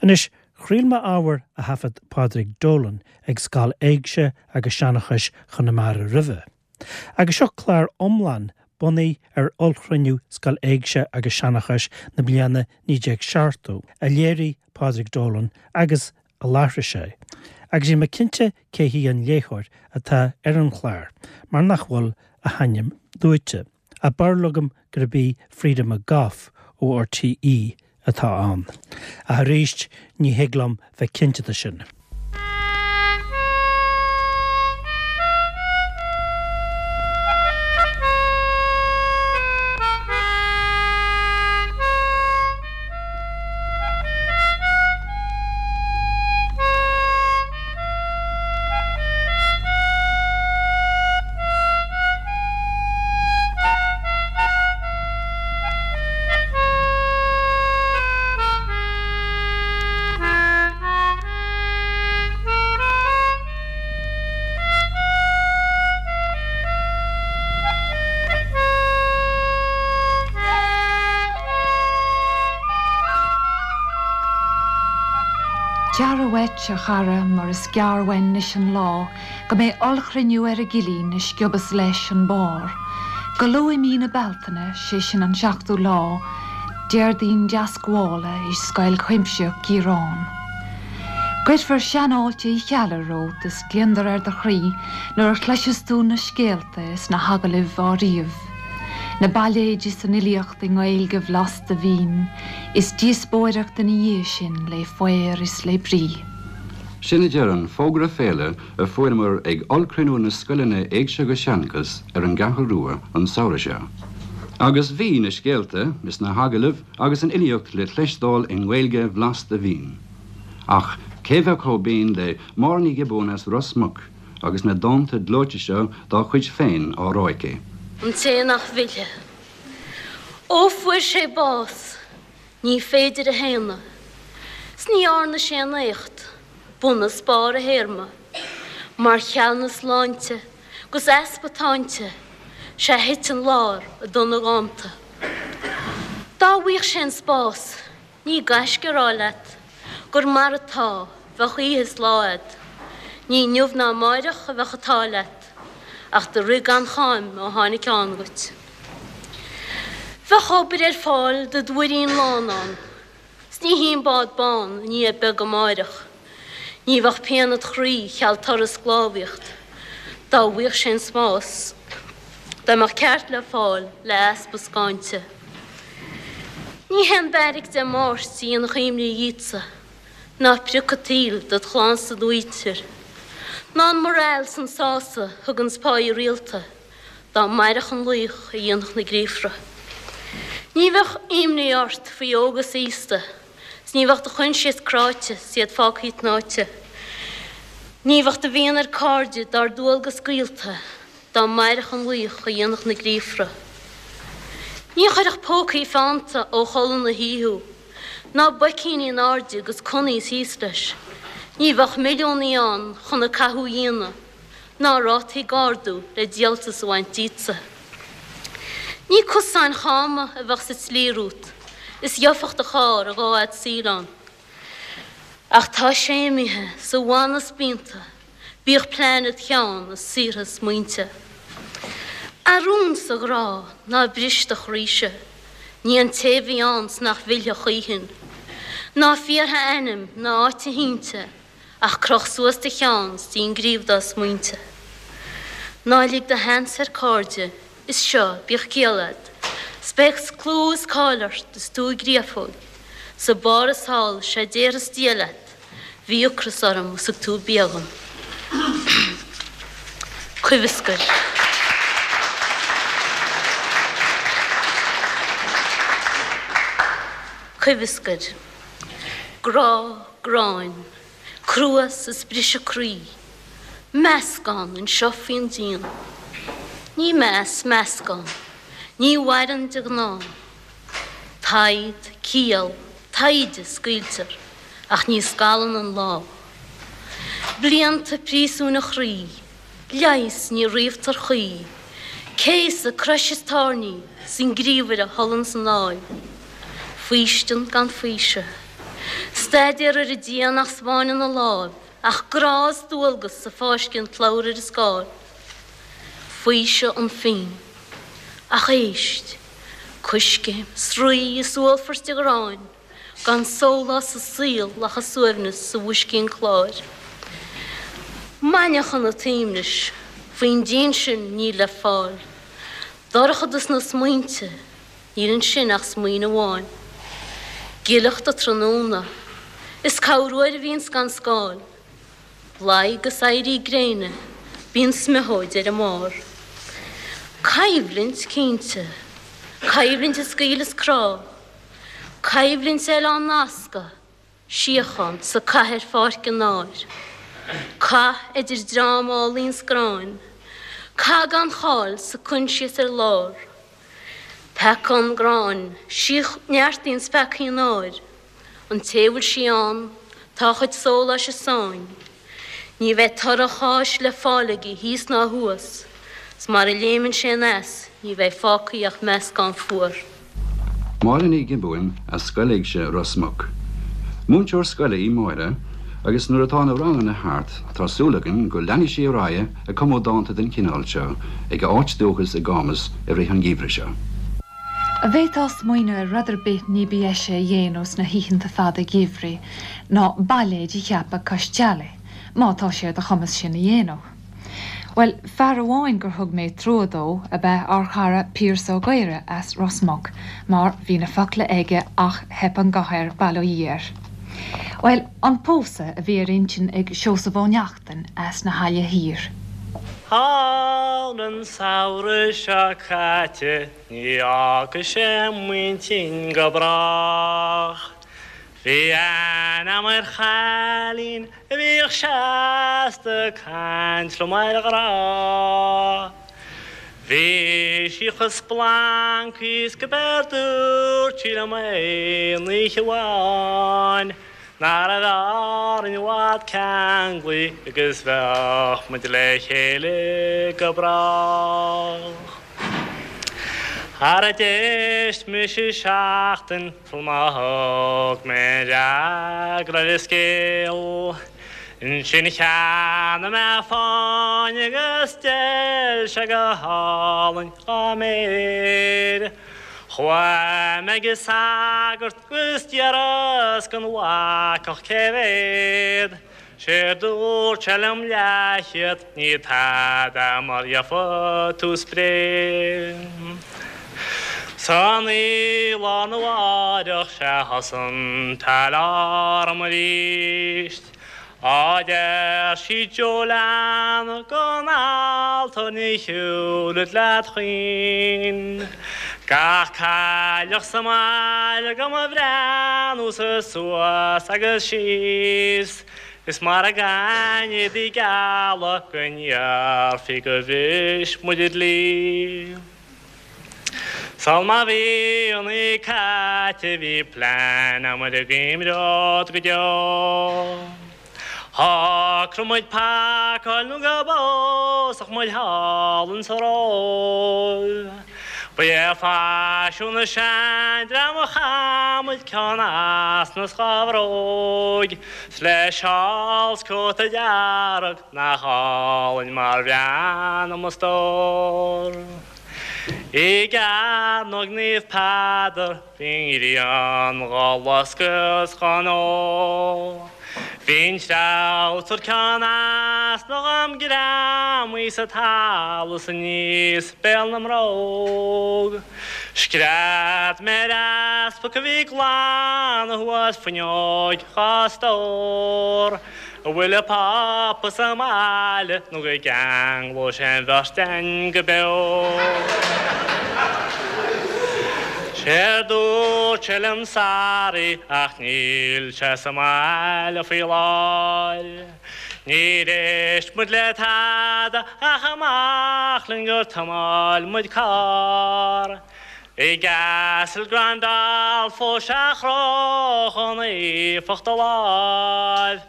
Anois, chraol mé ábhar a thaifead Pádraig Dolan ag Scoil Éigse agus Seanchais Chonamara roimhe. Agus seo clár iomlán bunaithe ar ollchruinniú Scoil Éigse agus Seanchais na bliana 1970 a léirigh Pádraig Dolan agus a láithrigh sé. Agus níl mé cinnte cé hí an léitheoir atá ar an chlár mar nach bhfuil a hainm luaite. Ach barúil agam gurb í Freda McGough ó RTÉ atá ann. Ach arís, ní thig liom bheith cinnte de sin. Gearra uait, a chara, mar is gearr uainn anois an lá go mbeidh ollchruinniú ar an gcillín a sciobas leis an barr. Go luath i mí na Bealtaine, sé sin an seachtú lá, Déardaoin Deascmhála i Scoil Chuimsitheach Chiaráin. Cuirfear seanfháilte Uí Cheallaigh romhat is gliondar ar do chroí nuair a chloiseas tú na scéalta is na hagallaimh á ríomh. Na bailéid is an fhilíocht i nGaeilge bhlasta mhín is díospóireacht ina dhiaidh sin lé faobhar is lé brí. Sin a deir an fógra féile a fuaireamar ag ollchruinniú na scoileanna Éigse agus Seanchas ar an gCeathrú Rua an samhradh seo. Agus bhí na scéalta is na hagallaimh agus an fhilíocht le cloisteáil i nGaeilge bhlasta mhín. Ach cé bheadh chomh binn le Máire Ní Ghiobúin as Ros Muc agus na dánta gleoite seo dá cuid féin á rá aici. An té nach bhfillfidh. Ó fuair sé bás. Ní féidir a shéanadh. 'S ní dhearna sé aon éacht, bun is barr a théarma. Mar cheal na sláinte 'gus easpa táinte, 'sea thit an lár i dtonna dhánta. Dá bhfaigheadh sé an spás, ní gaisce a rá leat, gur mar atá, bheadh oíche is lá a'd. Ní inniu ná amáireach a bheadh an t-ádh leat, ach do rith gan cháim ó tháinig ann dhuit. Bheadh obair ar fáil dod mhuirín lán ann, 's ní hí an bád bán i ndiaidh beag amáireach. Ní bheadh pian id chroí cheal turas sclábhaíocht, dá bhfaigheadh sé an spás, dá mbeadh ceart le fáil le easpa scáinte. Ní haon beairic Dé Máirt a dhéanfadh imní dhíotsa, ná priocadh an tsaoil dod chlann 's dod mhuintir, ná an morale 's an sásamh thuganns páighe rialta. Dá mairfeadh an laoch a dhéanfadh na gríofra. Ní bheadh imní ort faoi óg is aosta 's ní bheadh do choinsias cráite 's iad fágthaí tnáite. Ní bheadh do mhian ar cairde dár dualgas gaolta dá mairfeadh an laoch a dhéanfadh na gríofra. Ní chuirfeadh pócaí feannta ó chodladh na hoíche thú, ná boicíní in airde 'gus connies thíos leis. Ní bheadh milliúnaí ann chun an cathú a dhéanamh. ná rátaí ag ardú le díoltas a bhaint díotsa. Ní cosáin cháma a bheadh sa tslí romhat is gheofadh do charr a dhá fhad saoil ann. Ach tá sé imithe 's a mhana spíonta, bíodh plean id cheann is saortha smaointe. A rún 's a ghrá, ná bris do chroíse, ní an té bhí ann 's nach bhfillfidh choíchin. Ná fiafraigh a ainm ná áit a shínte, Ach croch suas do cheann 's dein gríobh dá smaointe. Ná lig do sheans ar cairde, is seo, bíodh ciall a'd, 's beidh clú is cáil ort is tú i gcréafóig, sa barr is thall, 'sé déarfas Dia leat, bhí ocras orm is thug tú bia dhom. Coimhescar. Coimhescar. Grá, gráin, cruas is briseadh croí, meascán anseo faoin díon. Ní meas meascán, ní mhaireann de ghnáth. Taighde, ciall, taighde, scaoiltear, ach ní scalann an lá. Blianta príosúin an chroí, leigheas ní ríomhtar choíche, céasadh, crois is tairní, 's an gríomhaire a thollann san áil. Faoistean gan faoiseamh. Staidéar ar an díon nach 'spáineann a láimh ach grá is dualgas a fáisceann slabhra ar an scáil. Faoiseamh an phinn. Ach éist! Coiscéim, sraoth is uallfairt de ghráin, gan sólás sa saol ach an suaimhneas sa bhoiscín cláir. Mainneachan an tsuaimhnis, faoin díon sin níl le fáil. Dorchadas na smaointe, níl ansin ach smaoineamh amháin. Gileacht an tráthnóna, is corruair a bhíonns gan scáil. Laghad is éirí gréine, bíonn smiothóid ar an mbarr. Coimhlint, cinnte. Coimhlint a scaoileas crá. Coimhlint eile á nascadh, síochán sa cathair pháirc an áir. Cath idir dream álainn 's gráin. Cath gan cháil 's a coinsias ar lár. Peaca an gráin, sí neartaíonns peacaí an áir. An té a bhfuil sí ann, tá a chuid sóláis i sáinn. Ní bheidh toradh a cháis le fáil aige thíos ná thuas, 's mar a léimeann sé aneas ní bheidh fágtha ach meascán fuar. Máire Ní Ghiobúin as Scoil Éigse Ros Muc. Múinteoir scoile í Máire agus nuair atá na ranganna thart tá súil againn go leanfaidh sí ar aghaidh ag cumadh dánta den chineál seo ag a áit dúchais i gCámas i rith an gheimhridh seo. An bhféadfá smaoineamh ar rud ar bith ní ba dheise a dhéanamh sna hoícheanta fada geimhridh ná bailéid a cheapadh cois teallaigh, má tá sé ar do chumas sin a dhéanamh? Bhuel, fear amháin gur thug mé trua dó ab ea ár chara Pearse Ó Gaora as Ros Muc, mar bhí na focla aige ach theip an guth air, bail ó Dhia air. Bhuel, an pósadh a bhí ar intinn ag Seosamh Ó Neachtain as na hAille Thiar. Thall an samhradh seo caite ní fhágfaidh sé m'intinn go brách. Bhí aithne a'm ar chailín a bhíodh seasta ag caint liom ar ghrá. Bhí sí chomh splancaí is go b'éard dúirt sí liom aon oíche amháin nach raibh orainn i bhfad ceanglaí agus bheadh muid le chéile go brách. Ara d'éist mise seachtain Sul má thug mé an fhreagra ar an scéal. Ansin cheannaigh mé fáinne agus d'fheil sé go hálainn dhá méir. Chuaigh mé ag an sagart agus d'iarras den bhacach cé mhéad. Séard dúirt sé liom leathchéad, ní tada mar gheofa tú spré. San oíche lá arna mháireach sea thosaigh an t-alarm arís. Á deir sí Joe lean gon altóir ní shiúlfad leat choíchin. Gach cailleach sa mbaile do mo bhreathnú-sa suas agus síos, is mara gcaithfinn éadaí geala go ndéarfaí gur bhris muid an dlí. Sul má bhí an oíche caite bhí plean a'm ar an gcoimreod go deo. Shocraigh muid pacáil nó go bpósfadh muid thall insa Róimh. Ba é faisiún na seandream a chaith muid ceann easna 's dha bhróig, 's le seál 's cóta dearg nach álainn mar bhreathnaigh mo stór. I gCearnóg Naomh Peadar Bhí an ghrian dhá loscadh 's dhá ndó. Bhí an treabhsar ceann easna dhom greamaithe sa talamh 's aníos béal na mbróg. Scread mé ar easpag a bhí ag glanadh thuas fuinneoig dhá stór. An bhfuil an Pápa sa mbaile nó go gceanglóidh sé an bheirt againn go beo. Séard dúirt sé liom sorry ach níl sé sa mbaile faoi láthair. Níor éist muid le tada ach amach linn gur thiomáin muid carr. I gCastel Gandolfo sea chroch an éifeacht a láimh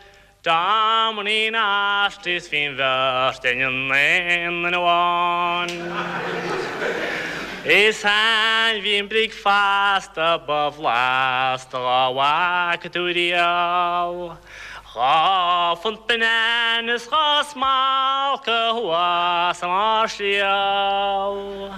Domini nostris bhí an bheirt againn in aon duine amháin. Is ainmhí an bricfeasta ba bhlasta dhá bhfaca tú riamh. 2 phunt punann is 2 smalca thuas i mbarr sliabh.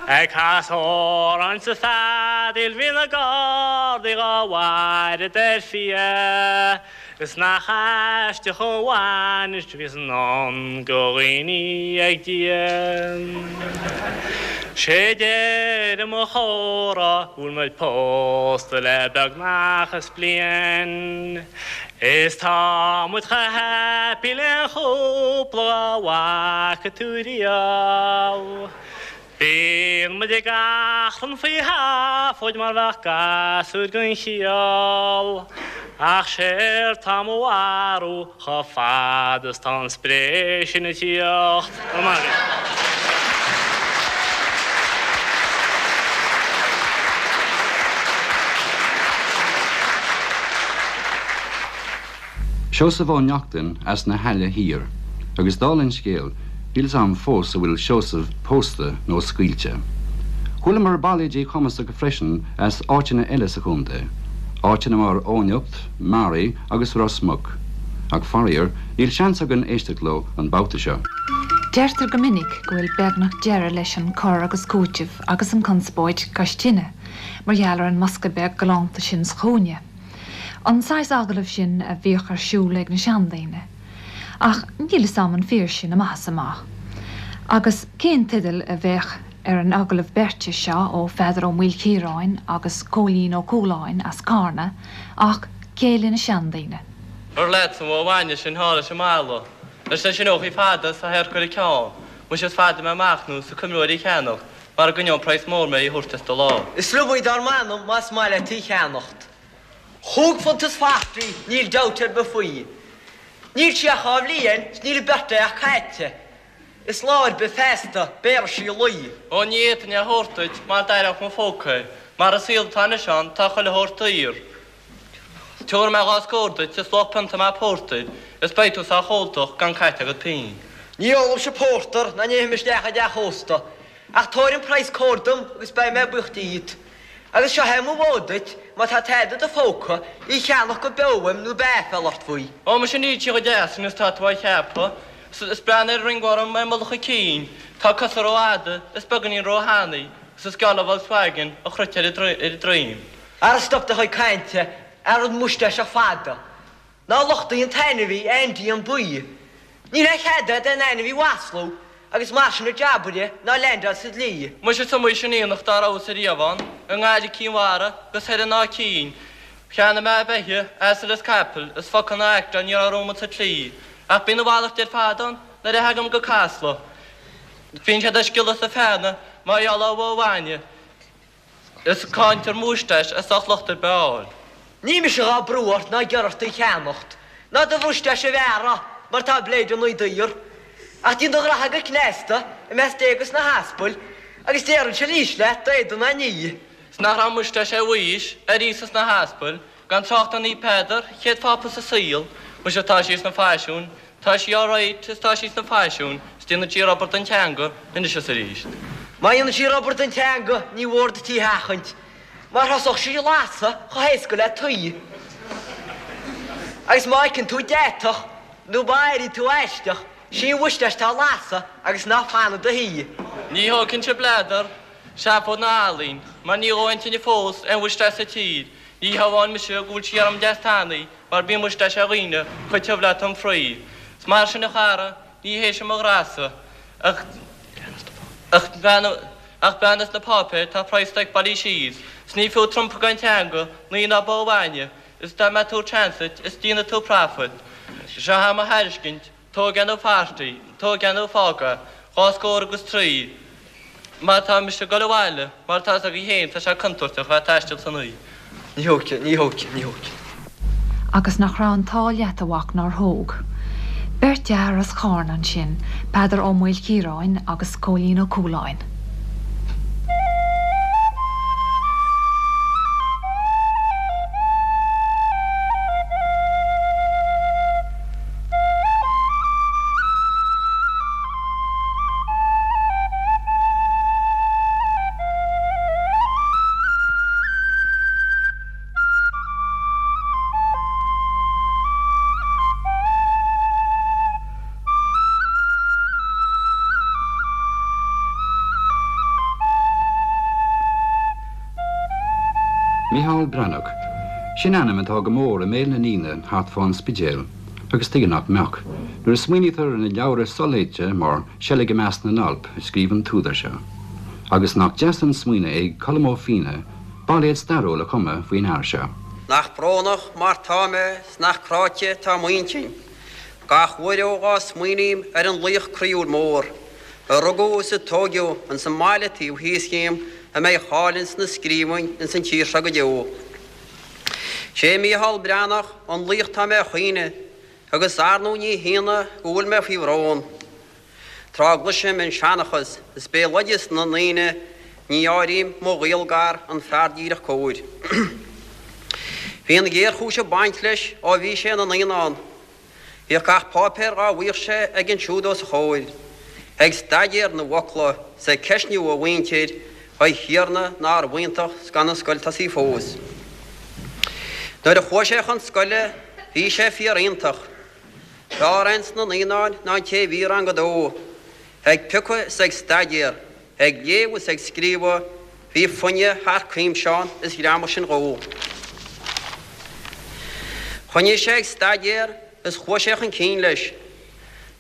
Ag casadh amhráin sa bhfeadaíl bhí na gardaí dhá bhfaire ar fiaigh. Is nach aisteach an bhainis a bhíos i ndán go dhaoine ag Dia. Sé deireadh mo chomhrá go bhfuil muid pósta le beagnach is bliain. Is tá muid chomh happy le aon chúpla dhá bhfaca tú riamh. Bíonn muid ag achrann faoi sheafóid mar bheadh gasúir gan chiall, ach séard tá mo bharúil chomh fada is tá an spré sin ag tíocht, go raibh maith agat. Seosamh Ó Neachtain as na hAille Thiar, agus dála an scéil, níl 's a'm fós an bhfuil Seosamh pósta nó scaoilte. Chualamar bailéidí cumasacha freisin as áiteanna eile sa chontae, áiteanna mar Eoghanacht, Maree agus Ros Muc, ach faraor, níl seans againn éisteacht leo an babhta seo. Deirtear go minic go bhfuil beagnach deireadh leis an cur agus cúiteamh agus an conspóid cois tine mar gheall ar an mbosca beag galánta sin sa chúinne. An saghas agallaimh sin a bhíodh ar siúl ag na seandaoine. Ach níl fhios a'm an fíor sin amach is amach. Agus cén teideal a bheadh ar an agallamh beirte seo ó Pheadar Ó Maoilchiaráin agus Cóilín Ó Cualáin as Carna ach Céile na Seandaoine. Ar leatsa an bhó bhainne sin thall leis an mballa. Leis na sineochaí fada is a théarc ar a ceann. Muise is fada mé amach nó sa coimreoir í cheannacht mar a gcoinneoinn praghas mór mé í thabhairt as do lámh. Is liom í dár m'anam más maith leat í cheannacht. Chúig phunt is forty, níl dabht ar bith faoi. Níl sí ach dhá bhliain 's níl a birthday ach caite. Is lá ar bith feasta, béarfaidh sí lao. Ó ní fhéadfainn é a thabhairt duit mar d'aireodh mo phóca é, mar an saol atá anois ann tá chuile shórt daor. Tabharfaidh mé dhá scór duit is luach pionta maith pórtair is beidh tú sách óltach gan caite agat pingin. Ní ólaimse pórtar ná ní théim isteach i dteach ósta, ach tabhair an praghas cóir dom agus beidh mé buíoch díot. Agus seo é mo bhó duit, má tá tada i do phóca, í cheannach go beo uaim nó beidh aiféala ort faoi. Ó, muise níl sí chomh deas sin is tá tú á cheapadh. Is breathnaigh ar an ringworm ar mullach a cinn, tá a cosa rófhada is beagáinín róthanaí agus is geall le Volkswagen a chroite ar a droim. Ara stop do chuid cainte, ar an mustáiste fada. Ná lochtaigh an t-ainmhí, Andy an Buí. Níl aon chead agat aon ainmhí a mhaslú, agus mar sin an jab uirthi ná leaindeáil sa dlí. Muise is iomaí sin aonach dá rabhas ariamh ann, i nGaillimh Cinn Mhara agus thoir in Áth Cinn. Cheannaigh mé beithe, asail is capaill, is focal ná aicteáil ní raibh romhat sa tslí. Ach bíonn a mhalairt ar fad ann nuair a thagaim go Casla. Bíonn siad ag sciolladh is ag feannadh mar gheall ar bhó bhainne. Is ag caint ar mhúistéis is sách locht ar bith a fháil. Ní mise dhá brú ort ná ag iarraidh ort í cheannacht, ná do mhúistéis a bhearradh, mar tá bléideanna daor. Ach déan do ghraithe go cneasta, i measc Dé agus na haspail, agus déarfainnse arís leat, d'éadan ná ní. 'S nach raibh mustáis ar Mhaois, ar Íosa 's na haspail, gan trácht ar Naomh Peadar, chéad phápa sa saol, muise tá sí sna faisiúin, Tá sí alright is tá sí sna faisiúin is déanann sí rubar den teanga anois is arís. Má dhéanann sí rubar den teanga ní mhór duit í a sheachaint, mar thosódh sí ag lasadh chomh héasca le tuí. Agus má fheiceann tú deatach nó má airíonn tú aisteach, sí an mhustáis atá ag lasadh agus ná fan i do shuí. Ní thógfainnse bladar, seafóid ná ealaín, mar ní dhóigh aon tine fós aon mhustáis sa tír, ní hamháin muise go bhfuil sí orm deas tanaí, Mar bíonn mustáis ar dhaoine chomh tiubh le tom fraoigh. 'S mar sin a chara, ní hé sin mo ghrása, ach ach ach breathnaigh sna páipéir, tá praghas stoic bailithe síos, 's ní fiú trumpa gan teanga, lao ná bó bhainne, is dá mbeadh tú transit, is déanfaidh tú profit. Seo é mo thairiscint, Tóg é nó fairtí, tóg é nó fág é, dhá scór agus trí. Má tá mise ag dul abhaile, mar tá fhios agaibh féin, tá sé contúirteach a bheith ag taisteal san oíche. Ní thógfaidh, ní thógfaidh, ní thógfaidh. Agus nach raibh an t-ádh leat, a mhac, nár thóg. Beirt fhear as Carna ansin, Peadar Ó Maoilchiaráin agus Cóilín Ó Cualáin. Micheál Breathnach, sin ainm atá go mór i mbéal na ndaoine thart fán Spidéal, agus tuige nach mbeadh, nuair a smaoinítear ar na leabhra soléite mar Seilg i Measc na nAlp a scríobh an t-údar seo. Agus nach deas an smaoineamh é ag Colm Ó Fianna bailéad stairiúil a chumadh faoin fhear seo. Nach brónach mar tá mé 's nach cráite tá m'intinn gach uair ó dhá smaoiním ar an laoch croíúil mór a rugadh is a tóigeadh ins an mbaile taobh thíos dhíom a mbeidh a cháil ins na scríbhinn ins an tír seo go deo. Sé Mícheál Breathnach an laoch tá mé a chaoineadh agus ar ndóigh ní hionadh go bhfuil mé faoi bhrón. Tráth a gcloisim an seanchas is béaloideas na ndaoine ní áirím mo ghaol gar an fear díreach cóir. Bhí an ghéarchúis ag baint leis ó bhí sé ina naíonán. Bhíodh gach páipéar dhá bhfaigheadh sé aige ansiúd os a chomhair, ag staidéar na bhfocla 's ag ceistniú a mhuintir, a Thiarna nárbh iontach 's gan an scoil tosaithe fós. Nuair a chuaigh sé chun scoile bhí sé fíor iontach. B'fhearr é ins na naíonáin ná an té a bhí i rang a dó, ag piocadh is ag staidéar, Ag léamh is ag scríobhadh, bhí foighne thar cuimse ann is ghreamaigh sin dhó. Choinnigh sé ag staidéar is chuaigh sé chun cinn leis.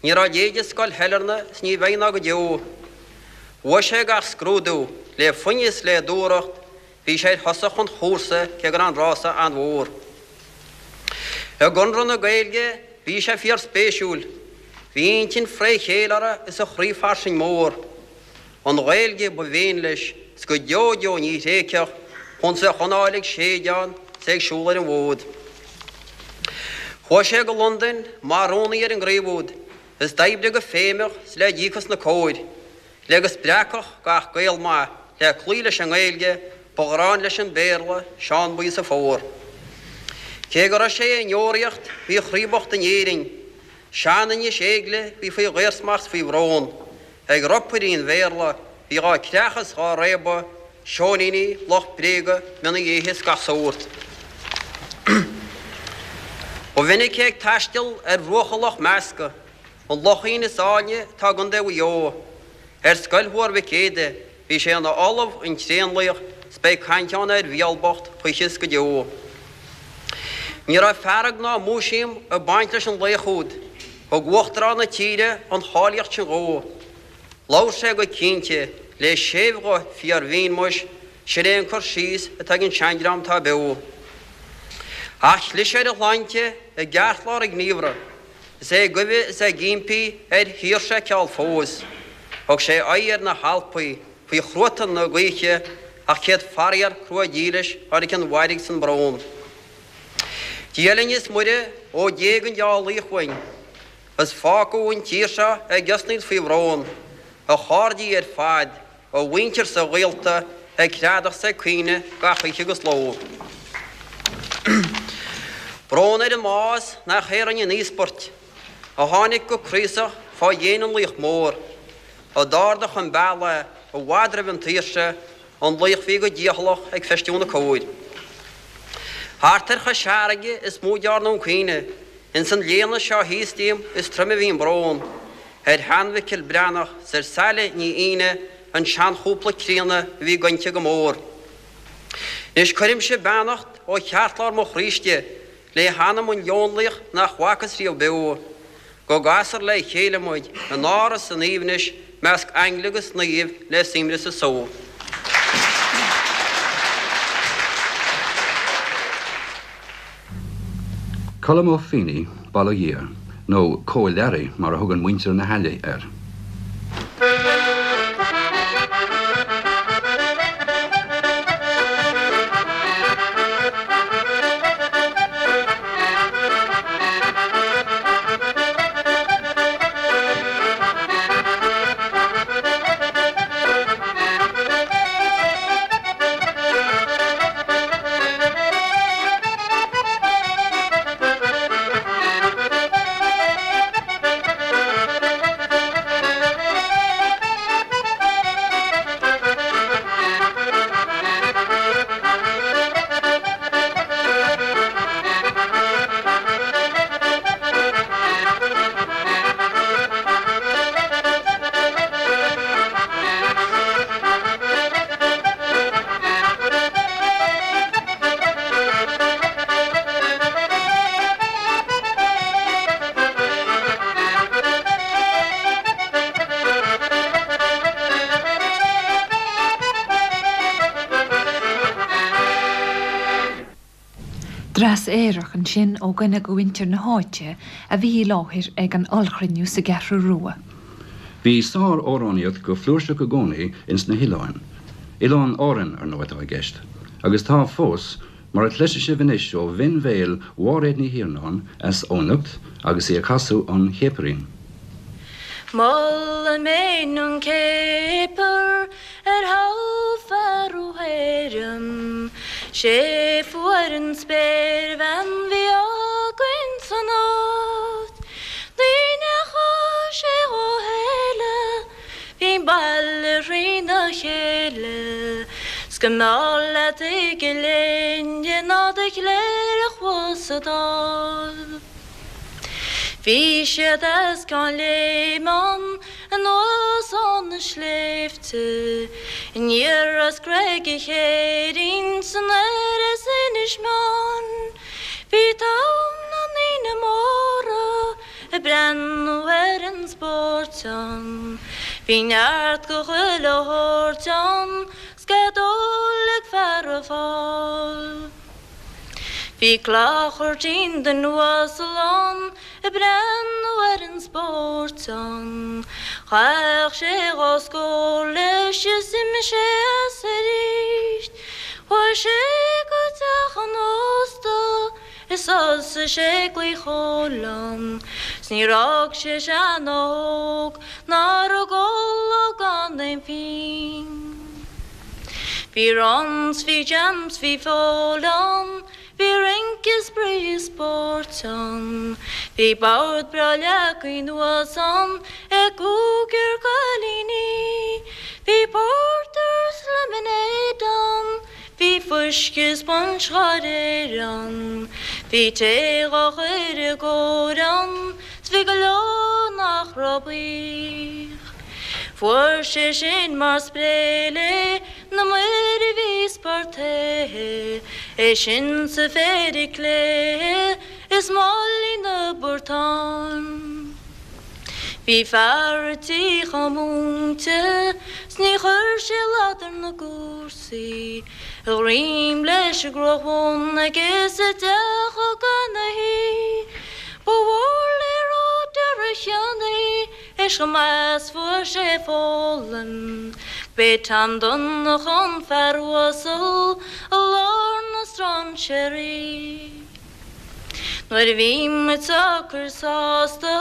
Ní raibh a leithéid i Scoil Shailearna is ní bheidh ná go deo. Bhuaigh sé gach scrúdú, le foighne is le dúthracht, bhí sé ar thosach an chúrsa cé go raibh an rása an-mhór. I gConradh na Gaeilge bhí sé fíor spéisiúil. Bhí a intinn fré chéile orthu is a chroí fairsing mór. An Ghaeilge ba mhéin leis 's go deo deo ní thréigfeadh punt a choinneáil ag séideán 's é ag siúl ar an bhfód. Chuaigh sé go Londain mar rúnaí ar an gcraobh úd is d'oibrigh go feidhmeach 's le díocas na cóir. Le go spreagfadh gach Gael maith le cloí leis an nGaeilge, ba ghráin leis an Béarla, Seán Buí sa Fómhar. Cé go raibh sé i ndeoraíocht, bhí a chroí bocht in Éirinn. Sean-Inis Éigle bhí faoi dhaorsmacht 's faoi bhrón. Ag ropairí an Bhéarla bhí dhá creachadh 's dhá réabadh, seoiníní, lucht bréige, mionnaí éithe 's gach sórt. Ba mhinic é ag taisteal ar bhruacha Loch Measca, An lochín is áilne atá i gContae Mhaigh Eo. Ar scoil Thuar Mhic Éadaigh bhí sé ina ollamh an tréanlaoch 's beidh caint ann ar Mhícheál bocht choíche is go deo. Ní raibh fearg ná múisiam ag baint leis an laoch úd. Thug Uachtarán na tíre an cháilíocht sin dhó. Labhair sé go cinnte, le séimh-ghuth fíor-mhín muis, sin é an cur síos atá ag an seandream atá beo. Ach chlis ar a shláinte i gceartlár a ghníomhartha. Is é ag guibhe is ag impí ar shaoirse a fheiceáil fós. Thug sé aghaidh ar na hAlpaí faoi chruatan na gaoithe ach céad faraor crua dílis tháinig an mhairg 's an brón. Dia linn is Muire ó d'éag an deá laoch uainn is fágadh an tír seo ag osnaíl faoi bhrón, a chairdí ar fad, A mhuintir 's a ghaolta ag creadach 's ag caoineadh gach oíche agus ló. Brón ar an mbás nach é a rinne an íospairt, a tháinig go craosach fá dhéin an laoich mór, a d'ardaigh chun bealaigh i bhfad roimh an tsaoirse, an laoch bhí go dícheallach ag feistiú na cóir. Thart ar Chois Fharraige is mó dearnadh an caoineadh, ins an léana seo thíos díom is troime a bhí an brón. Ar shean-Mhicil Breathnach 's ar Saile Ní Fhíne an seanchúpla críonna a bhí gointe go mór. Anois cuirimse beannacht ó cheartlár mo chroí istigh le hanam an leonlaoich nach bhfacthas riamh beo. Go gcasfar le chéile muid in áras an aoibhnis measc aingle agus naoimh le suaimhneas is só. Colm Ó Fínneigh, bail ó Dhia air, nó Cóil Learaí mar a thugann muintir na hAille air. aerach ansin ó dhuine de mhuintir na háite a bhí i láthair ag an ollchruinniú sa gCeathrú Rua. Bhí sár-amhránaíocht go flúirseach i gcónaí ins na hoileáin. Oileáin Árann, ar ndóigh, atá i gceist. Agus tá fós, mar a chloisfidh sibh anois ó bhinn-bhéal Mháiréad Ní Thiarnáin as Eoghanacht agus í ag casadh an Chéapairín. Molaim fhéin an céapar ar thoghadh fear ó hÉireann, 'Sé fuair an spéirbhean bhí againn san áit. Ní ndeachaigh sé dhá fhéile, bhí an baile thrína chéile, 's go mb'fhearr leat i gCill Éinne ná do chléireach thuas sa Dáil. Bhí siad as Ceann Léime anuas ó na sléibhte, aniar as Creag a' Chéirín 's anoir as Inis Meáin. Bhí togha na ndaoine móra ag breathnú ar an spórt ann. Bhí neart go chuile shórt ann 's cead óil ag feara Fáil. Bhí clochairtín duine uasal ann ag breathnú ar an spórt ann. Chaith sé dhá scór leis is d'imigh sé as arís. Chuaigh sé go teach an ósta is thosaigh sé ag glaoch óil ann. 'S níor fhág sé sean ná óg nach raibh ag ól gan aon phingin. Bhí runs, bhí jams, bhí feoil ann, bhí rince, spraoi is spóirt ann. Bhí bord breá leagtha anuas ann ag cúigear cailíní. Bhí pórtar 's lemonade ann, bhí fuisce is punch dhá réir ann. Bhí tae dhá chur i gcóir ann, 's bhí go leor nach raibh buíoch. Fuair sé sin mar spré lé na maoir a bhí spartaithe, é sin 's a phéire cléithe is málaí na bportán. Bhí fear a' tí chomh múinte 's ní chuir sé slad ar na gcúrsaí, a dhroim leis an gcruach bhun aige sa dteach gan a shuí. Ba mhór le rá d'fhear a' chionnaí Is chomh maith 's fuair sé foghlaim B'é Tom Donncha an fear uasal i lár na strainséirí. Nuair a bhí muid socair sásta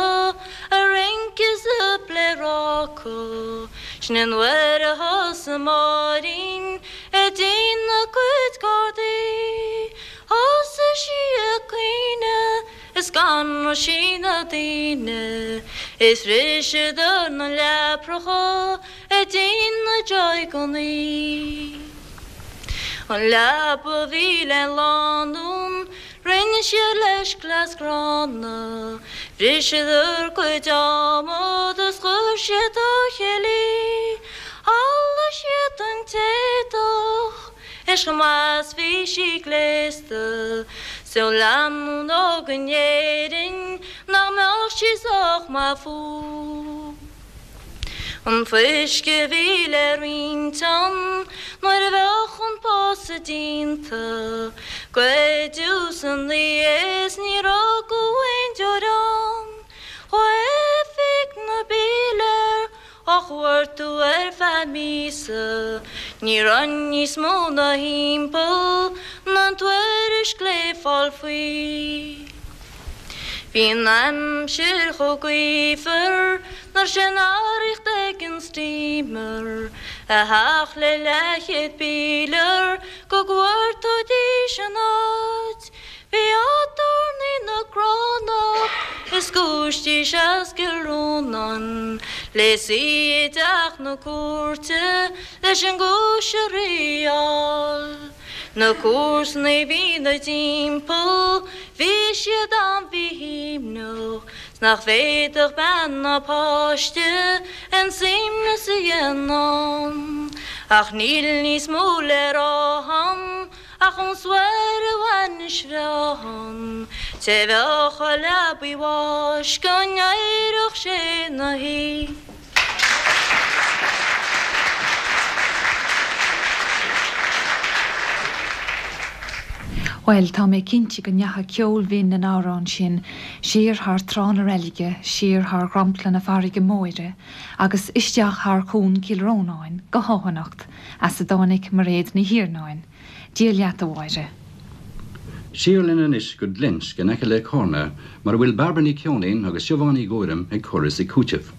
ag rince is ag pléaráca, sin an uair a thosaigh Máirín ag déanamh a cuid cártaí. Thosaigh sí ag caoineadh Is scanraigh sí na daoine is bhriseadar na leapracha ag déanamh jaigeannaí. An leaba a bhí le lánúin rinne siad leis cleas gránna, bhriseadar cuid adhmad is chuir siad dá chéile í, shamhlaigh siad an t-éadach. Is chomh maith 's bhí sí gléasta 's ó lánúin óg in Éirinn nach mbeadh sí sách maith fúthu. An fuisce a bhí le roinnt ann nuair a bheadh an pósadh déanta, goideadh san oíche is níor fhágadh aon deoir ann. Chuaigh oifig na bpílear á chuartú ar feadh míosa. Ní raibh níos mó ná thimpeall ná an tuairisc le fáil faoi. Bhí an aimsir chomh gaofar nach raibh sé in arracht ag an steamer a theacht le leathchéad pílear go gcuartóidís an áit. Bhí aturnae na gCránach is giúistís as Cill Rónáin le suí i dteach na cúirte leis an gcúis a thriáil. Na comharsanaí a bhí 'na dtimpeall bhí siad an-mhíshuaimhneach 's nach bhféadfadh bean ná páiste aon suaimhneas a dhéanamh ann. Ach níl níos mó le rá a'm. Ach ón soir a bhainis bhreá an té bheadh i leabaidh bháis go n-éireodh sé 'na shuí. Bhuel, tá mé cinnte go ndeachaigh ceol bhinn an amhráin sin siar thar Trá na Reilige, siar thar dhromchla na farraige móire agus isteach thar Chuan Chill Rónáin go hÁth as a dtáinig Mairéad Ní Thiarnáin. Dia leat, a Mháire. Siar linn anois go Glinsk in aice le Cárna mar a bhfuil Bairbre Ní Cheoinín agus Siobhán Ní Ghuairim ag cur is ag cúiteamh.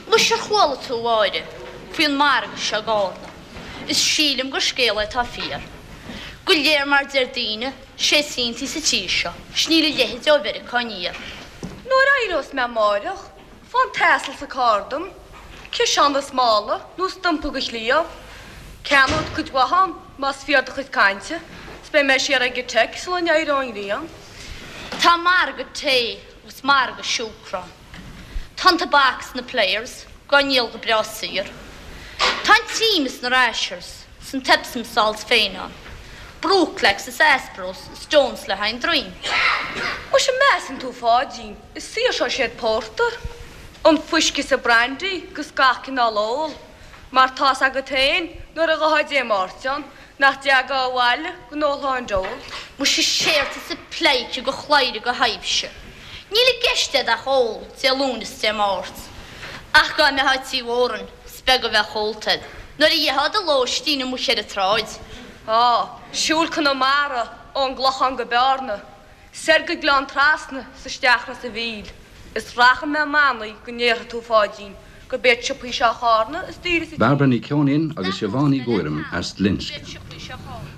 Muise ar chuala tú, a Mháire, faoin margadh seo i gCárna? Is sílim gur scéal é atá fíor. Go léir mar deir daoine, sé is iontaí sa tír seo, 's níl a leithéid ó Mheiriceá aniar. Nuair a éireos mé amáireach, fán t-asal sa carr dom, ciseán is mála nó stumpa go chliabh. Ceannód cuid mhaith ann, más fíor do chuid cainte, 's beidh mé siar ag an teic sula n-éireoidh an ghrian. Tá margadh tae agus margadh siúcra ann. Tá an tobac 's na players dhá ndíol go breá saor. Tá an trim is na rashers 's an t-epsom salts féin ann. Brooklax is Aspros is Stones le haghaidh an droim. Muise measann tú Pháidín, is saoirseoidh siad pórtar, an fuisce is an brandy 'gus gach cineál ól, mar tá's agat féin nuair a ghabhfá Dé Máirt ann nach dteagá abhaile go n-ólfá an deol. Muise séard tá sa pleidhce go chladhaire go thaibhse. Níl i gceist a'd ach ól Dé Luain is Dé Máirt. Ach dá mbeifeá Tí Mhórain, is beag a bheadh ólta a'd nuair a gheofá do lóistín amuigh ar an tsráid. Á, siúl Conamara ón gClochán go Bearna, soir go Gleann Trasna 's isteach Ros a' Mhíl, is rachaidh mé manaí go ndéarfaidh tú, Pháidín, gurb iad siopaí seo Chárna is daoire sa tír. Bairbre Ní Cheoinín agus Siobhán Ní Ghuairim as Glinsk.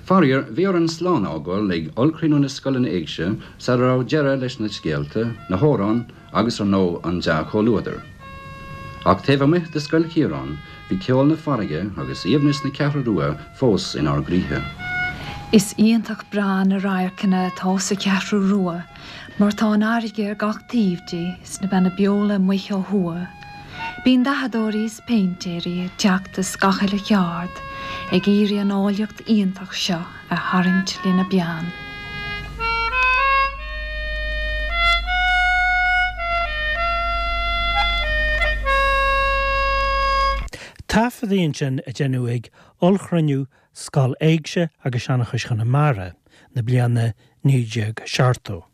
Faraor, bhí orainn slán a fhágáil ag ollchruinniú na scoileanna éigse sara raibh deireadh leis na scéalta, na hamhráin agus, ar ndóigh, an dea-chomhluadar. Ach taobh amuigh de Scoil Chiaráin, bhí ceol na farraige agus aoibhneas na Ceathrú Rua fós inár gcroíthe. Is iontach breá na radharcanna atá sa Cheathrú Rua mar tá an fharraige ar gach taobh di 's na Beanna Beola amuigh ó thuaidh. Bíonn dathadóirí is péintéirí ag teacht as gach uile cheard ag iarraidh an áilleacht iontach seo a tharraingt lena bpeann. Taifeadtaí ansin a deineadh ag ollchruinniú Scoil Éigse agus Seanchais Chonamara na bliana 1970.